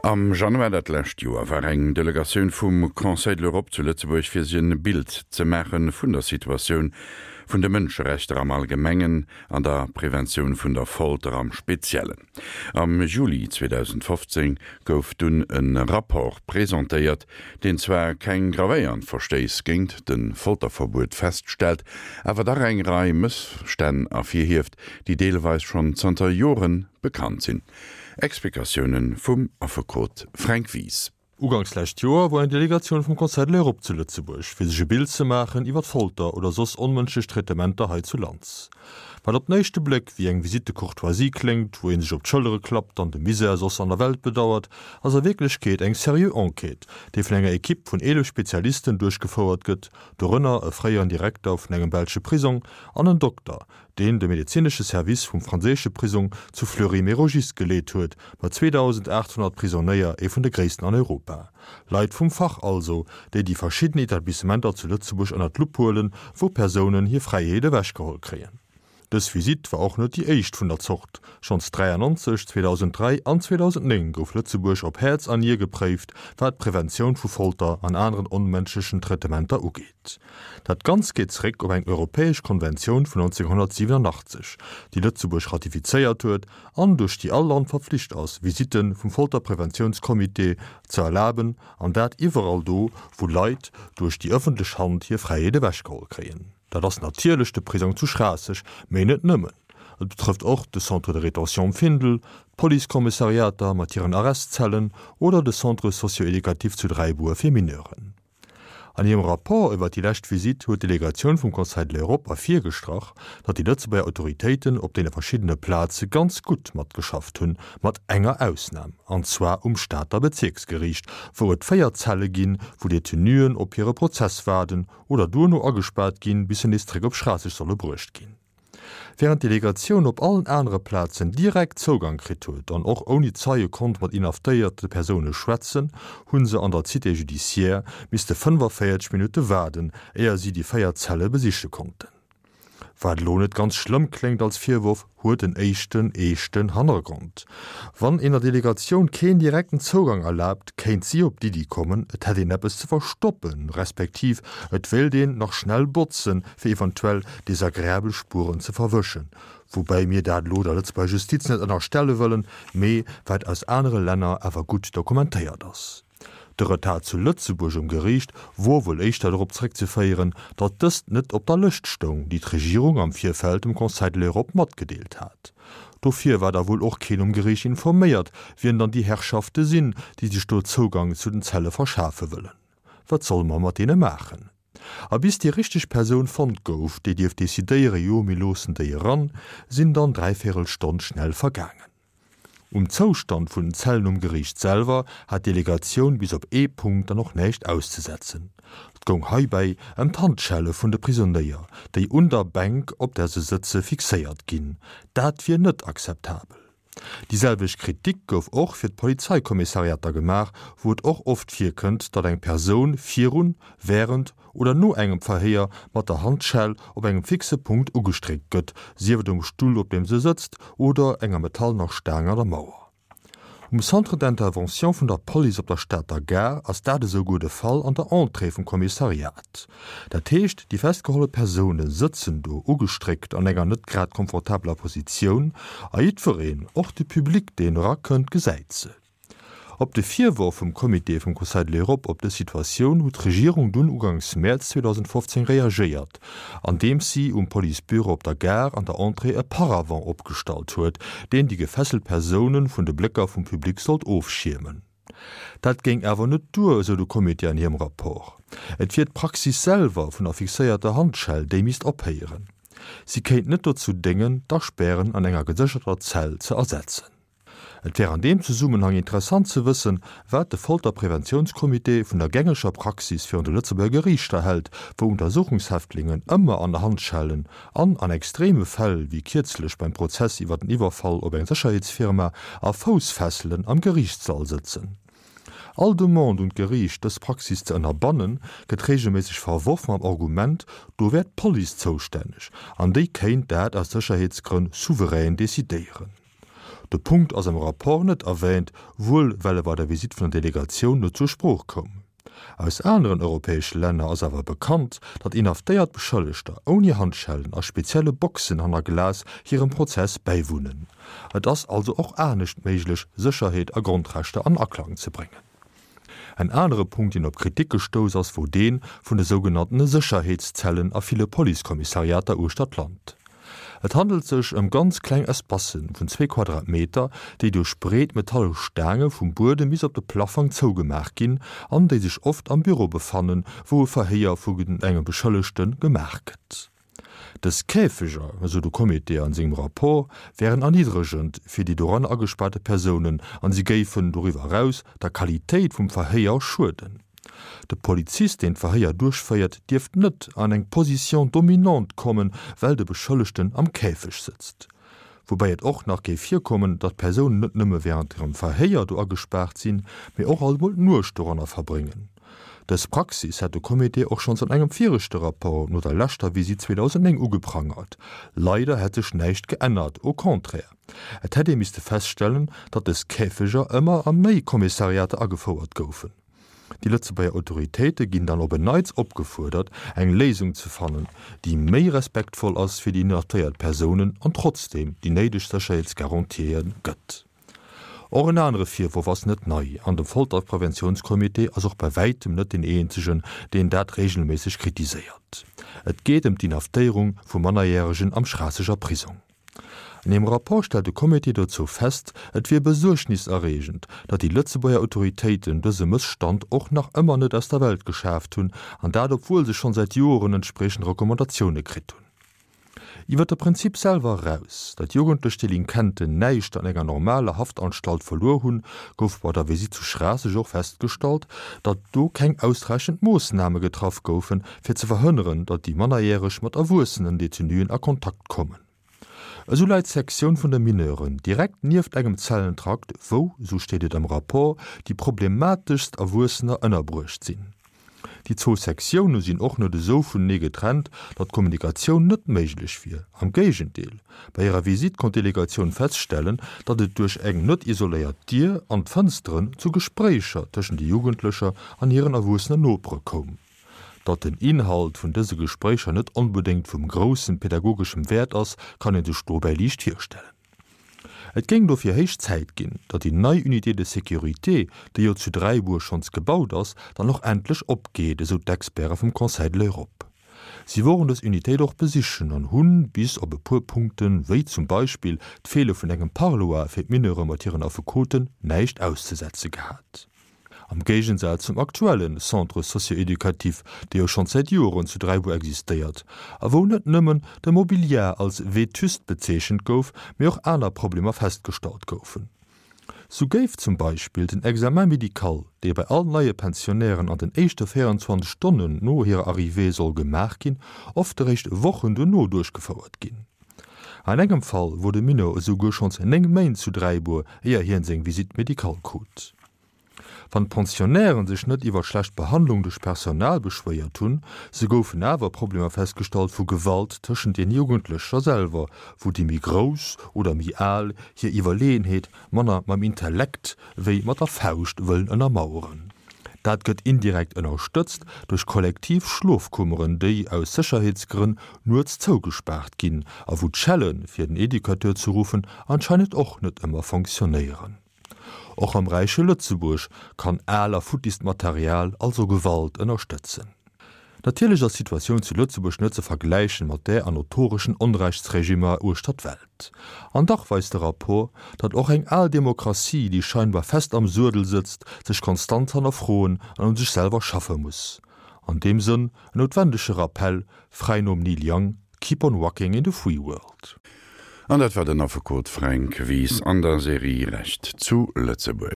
Am Januar dat lescht Joer war eng Delegatioun vum Conseil de l'Europe zu Lëtzebuerg fir sech en Bild ze maache vun der Situatioun vun de Mënscherechter am Allgemengen an der Preventioun vun der Folter am Speziellen. Am Juli 2015 gouf dunn e Rapport presentéiert, deen zwar keng gravéiernd Verstéiss géint de Folterverbuet feststellt, awer dach eng Rei Mësstänn ervirhieft, déi deelweis schonn zanter Jore bekannt sinn. Explikatioune vum Affekot Fränk Wies. Uganks lescht Joer wor eng Delegatioun vum Conseil de l'Europe zu Lëtzebuerg, fir sech e Bild ze maachen iwwer Folter oder soss onmënschlech Traitementer hei zu Land. Wat op den éischte Bléck wéi eng Visite de courtoisie kléngt, wou ee sech op d'Schëllere klappt an de Misär soss an der Welt bedauert, ass a Wierklechkeet eng seriö Enquête, déi vun enger Ekipp vun 11 Spezialisten duerchgefouert gëtt, dorënner e fréieren Direkter vun engem belsche Prisong an en Dokter, deen de medezinesche Service vum franséische Prisong zu Fleury-Mérogis geleet huet, mat 2.800 Prisonéier ee vun de gréissten an Europa. Leit vum Fach also, déi déi verschidden Etablissementer zu Lëtzebuerg ënnert d'Lupp huelen, wou Persounen hir Fräiheet ewechgeholl kréien. Dës Visitt war och net déi éischt vun der Zort. Schonns 93, 2003 an 2009 gouf Lëtzebuerg op Häerz an Nier gepréift, wat d'Preventioun vu Folter an aneren onmënschlechen Traitementer ugeet. Dat Ganzt geet zeréck op eng europäesch Konventioun vun 1987, déi Lëtzebuerg ratifizéiert huet an duerch déi all Land verpflicht ass, Visitte vum Folterpreventiounscomité ze erlaben, an dat iwwerall do, wou Leit duerch déi ëffentlech Hand hir Fräiheet ewechgeholl kréien. Dat ass natierlech de Prisong zu Schraasseg, mee net nëmmen. Et betrëfft och de Centre de rétention um Findel, d'Policekommissariater mat hiren Arrestzellen oder de Centre socio-éducatif zu Dräibuer fir Mineuren. An hirem Rapport iwwer déi lescht Visitt huet d'Delegatioun vum Conseil de l'Europe ervirgestrach, datt déi Lëtzebuerger Autoritéiten op deene verschiddene Plaze ganz gutt matgeschafft hunn, mat enger Ausnam, an zwar um Stater Bezierksgeriicht, wou et 4 Zelle ginn, wou Detenuen op hire Prozess waarden oder duerno agespaart ginn, bis se nees zréck op Schraasseg solle bruecht ginn. Wärend d'Delegatioun op allen anere Plazen direkt Zougang kritt huet an och ouni Zeie konnt mat inhaftéierte Persoune schwätzen, hu se an der Cité judiciaire misste 45 Minutte waarden, éier si déi 4 Zelle besiche konnten. Wat elo net ganz schlëmm kléngt als Virworf, huet en éischten eeschten Hannergrond. Wann een der Delegatioun keen direkten Zougang erlaabt, kéint si op d'Iddi kommen, et hätt een eppes ze verstoppen, respektiv et wéilt een nach schnell botzen, fir eventuell desagreabel Spueren ze verwëschen. Woubäi mir dat elo der Lëtzebuerger Justiz net ënnerstelle wëllen, mee wat aus anere Länner awer gutt dokumentéiert ass. De Retard zu Lëtzebuerg um Geriicht wor wuel éischter dorop zréckzeféieren, datt dëst net op der Lëscht stoung, déi d'Regierung am Virfeld dem Conseil de l'Europe matgedeelt hat. Dofir war da wuel och keen um Geriicht informéiert, wien dann déi Herrschafte sinn, déi sech do Zougang zu den Zelle verschafe wëllen. Wat solle mer mat deene maachen? A bis déi richteg Persoun fonnt gouf, déi dierf decidéiere jo mir loossen déi eran, sinn dann dräivéierel Stonn schnell vergaangen. Um Zoustand vun den Zellen um Geriicht selwer hat d'Delegatioun bis op ee Punkt dann och näischt auszesetzen. Et goung heibäi ëm d'Handschelle vun de Prisonéier, déi un der Bänk, op där se sëtze, fixéiert ginn. Dat wier net akzeptabel. Déi selwecht Kritik gouf och fir d'Polizeikommissariater gemaach, wou et och oft virkënnt, datt eng Persoun virun, wärend oder no engem Verhéier mat der Handschell op engem fixe Punkt ugestréckt gëtt, sief et um Stull op deem se sëtzt oder enger metallener Staang an der Mauer. Um Centre d'intervention vun der Police op der Stater Gare ass dat esouguer de Fall an der Entrée vum Kommissariat. Dat heescht, déi festgeholle Persoune sëtzen do ugestréckt an enger net grad komfortabeler Positioun a jiddwereen, och de Public deen erakënnt, gesäit se. Op de Virworf vum Comité vum Conseil de l'Europe op dës Situatioun huet d'Regierung dunn uganks Mäerz 2015 reagéiert, andeems si um Policebüro op der Gare an der Entrée e Paravent opgestallt huet, deen déi gefesselt Persoune vun de Blécker vum Public sollt ofschiermen. Dat géing awer net duer, esou de Comité an hirem Rapport. Et wier d'Praxis selwer vun der fixéierter Handschell, déi misst ophéieren. Si kéint net dozou déngen, d'Aspären an enger gesécherter Zell ze ersetzen. Et wär an deem Zesummenhang interessant ze wëssen, wat de Folterpreventiounscomité vun der gängeger Praxis virun de Lëtzebuerger Geriichter hält, wou Untersuchungshäftlingen ëmmer an Handschellen an, an extreme Fäll, wéi kierzlech beim Prozess iwwer den Iwwerfall op eng Sécherheetsfirma, a Foussfesselen am Geriichtssall sëtzen. All Demande un d'Geriicht, dës Praxis ze ënnerbannen, gëtt reegelméisseg verworf mam Argument, do wär d'Police zoustänneg an déi kéint dat aus Sécherheetsgrënn souverän decidéieren. De Punkt ass am Rapport net erwähnt, wuel well e bei der Visitt vun der Delegatioun net zur Sprooch koum. Aus aneren europäesche Länner ass awer bekannt, datt inhaftéiert Beschëllegter ouni Handschellen a spezielle Boxen hanner Glas hirem Prozess bäiwunnen. Et ass also och anescht méiglech, Sécherheet a Grondrechter an Aklang ze bréngen. En anere Punkt, deen op Kritik gestouss ass, wor dee vun de sougenanntene Sécherheetszellen a ville Policekommissariater uechter d'Land. Et handelt sech ëm ganz kleng Espacen vun zwee Quadratmeter, déi duerch breet metalle Staange vum Buedem bis op de Plaffang zougemaach ginn an déi sech oft am Büro befannen, wou e Verhéier vu engem Beschëllegte gemaach gëtt. Dës Käfeger, esou de Comité an sengem Rapport, wären erniddregend fir déi doran agespaarte Persounen an si géifen doriwwer eraus der Qualitéit vum Verhéier schueden. De Polizist, deen d'Verhéier duerchféiert, dierft net an eng Position dominante kommen, well de Beschëllegten am Käfeg sëtzt. Woubäi et och nach géif virkommen, datt Persounen net nëmme wärend hirem Verhéier do agespaart sinn, mee och alt emol d'Nuecht doranner verbréngen. Dës Praxis hätt de Comité och schonns an engem viregte Rapport no der leschter Visitt 2009 ugeprangert. Leider hätt sech näischt geännert, au contraire, et hätt ee misste feststellen, datt dës Käfeger ëmmer a méi Kommissariater agefouert goufen. Déi Lëtzebuerger Autoritéite ginn dann op en Neits opgefuerdert, eng Léisung ze fannen, déi méi respektvoll ass fir déi inhaftéiert Persounen an trotzdeem déi néideg Sécherheetsgarantië gëtt. Och en anere Virworf ass net nei, an de Folterpreventiounscomité ass och bei wäitem net deen eenzegen, deen dat reegelméisseg kritiséiert. Et geet ëm d'Inhaftéierung vu Mannerjäregen am Schraasseger Prisong. An hirem Rapport stellt de Comité dozou fest, et wier besuergniserreegend, datt déi Lëtzebuerger Autoritéiten dëse Mësstand och nach ëmmer net aus der Welt geschaaft hunn, an dat obwuel se schonn säit Joren entspriechend Recommandatioune kritt hunn. Iwwer de Prinzip selwer eraus, datt jugendlech Delinquenten näischt an enger normaler Haftanstalt verluer hunn, gouf bei der Visitt zu Schraasseg och festgestallt, datt do keng ausräichend Moossname getraff goufen, fir ze verhënneren, datt déi Mannerjäreg mat erwuessenen Detenuen a Kontakt kommen. Esou läit d'Sektioun vun de Mineuren direkt nieft engem Zellentrakt, wou, esou steet et am Rapport, déi problemateschst Erwuessener ënnerbruecht sinn. Déi zwou Sektioune sinn och net esou vunenee getrennt, datt d'Kommunikatioun net méiglech wier. Am Géigendeel, bei hirer Visitt konnt d'Delegatioun feststellen, datt et duerch eng net isoléiert Dier an d'Fënsteren zu Gespréicher tëschent de Jugendlecher an hiren erwuessenen Nopere koum. Datt den Inhalt vun dëse Gespréicher net onbedéngt vum groussen pädagogeschem Wäert ass, kann ee sech dobäi liicht virstellen. Et géing dofir héich Zäit ginn, datt déi nei Unité de sécurité, déi jo zu Dräibuer schonns gebaut ass, dann och endlech opgeet, esou d'Experte vum Conseil de l'Europe. Si woren dës Unitéit och besichen an hunn, bis op e puer Punkten, wéi zum Beispill d'Feele vun engem Parloir fir d'Mineure mat hiren Affekoten, näischt auszesetze gehat. Am Géigensaz zum aktuelle Centre socio-éducatif, dee jo schonns säit Joeren zu Dräibuer existéiert, a wou net nëmmen de Mobiliar als vétuste bezeechent gouf, mee och aner Problemer festgestallt goufen. Sou géif zum Beispill den Examen médical, dee bei all neie Pensionnairen an den éischte 24 Stonnen no hirer Arrivée soll gemaach ginn, oft eréischt Wochen duerno duerchgefouert ginn. An engem Fall wor de Mineur esouguer schonns 9 Méint zu Dräibuer, éier hien seng Visite médicale krut. Wann d'Pensionnairen sech net iwwer schlecht Behandlung duerch d'Personal beschwéiert hunn, sou goufen awer Problemer festgestallt vu Gewalt tëschent den Jugendlecher selwer, wou déi méi grouss oder méi al hir Iwwerleeënheet manner mam Intellekt wéi mat der Fauscht wëllen ënnermaueren. Dat gëtt indirekt ënnerstëtzt duerch kollektiv Schlofkummeren, déi aus Sécherheetsgrënn nuets zougespaart ginn a wou d'Schelle fir den Educateur ze ruffen anscheinend och net ëmmer fonctionnéieren. Och am räiche Lëtzebuerg kann al a futtist Material also Gewalt ënnerstëtzen. Natierlech ass d'Situatioun zu Lëtzebuerg net ze vergläichen mat där an notoreschen Onrechtsregimer uechter d'Welt. An dach weist de Rapport, datt och eng al Demokratie, déi scheinbar fest am Suedel sëtzt, sech konstant hannerfroen an un sech selwer schaffe muss. An deem Sënn en noutwendege Rappell, fräi nom Neil Young, Keep on rocking in the free world. An dat war den Affekot Fränk Wies an der Serie Recht zu Lëtzebuerg.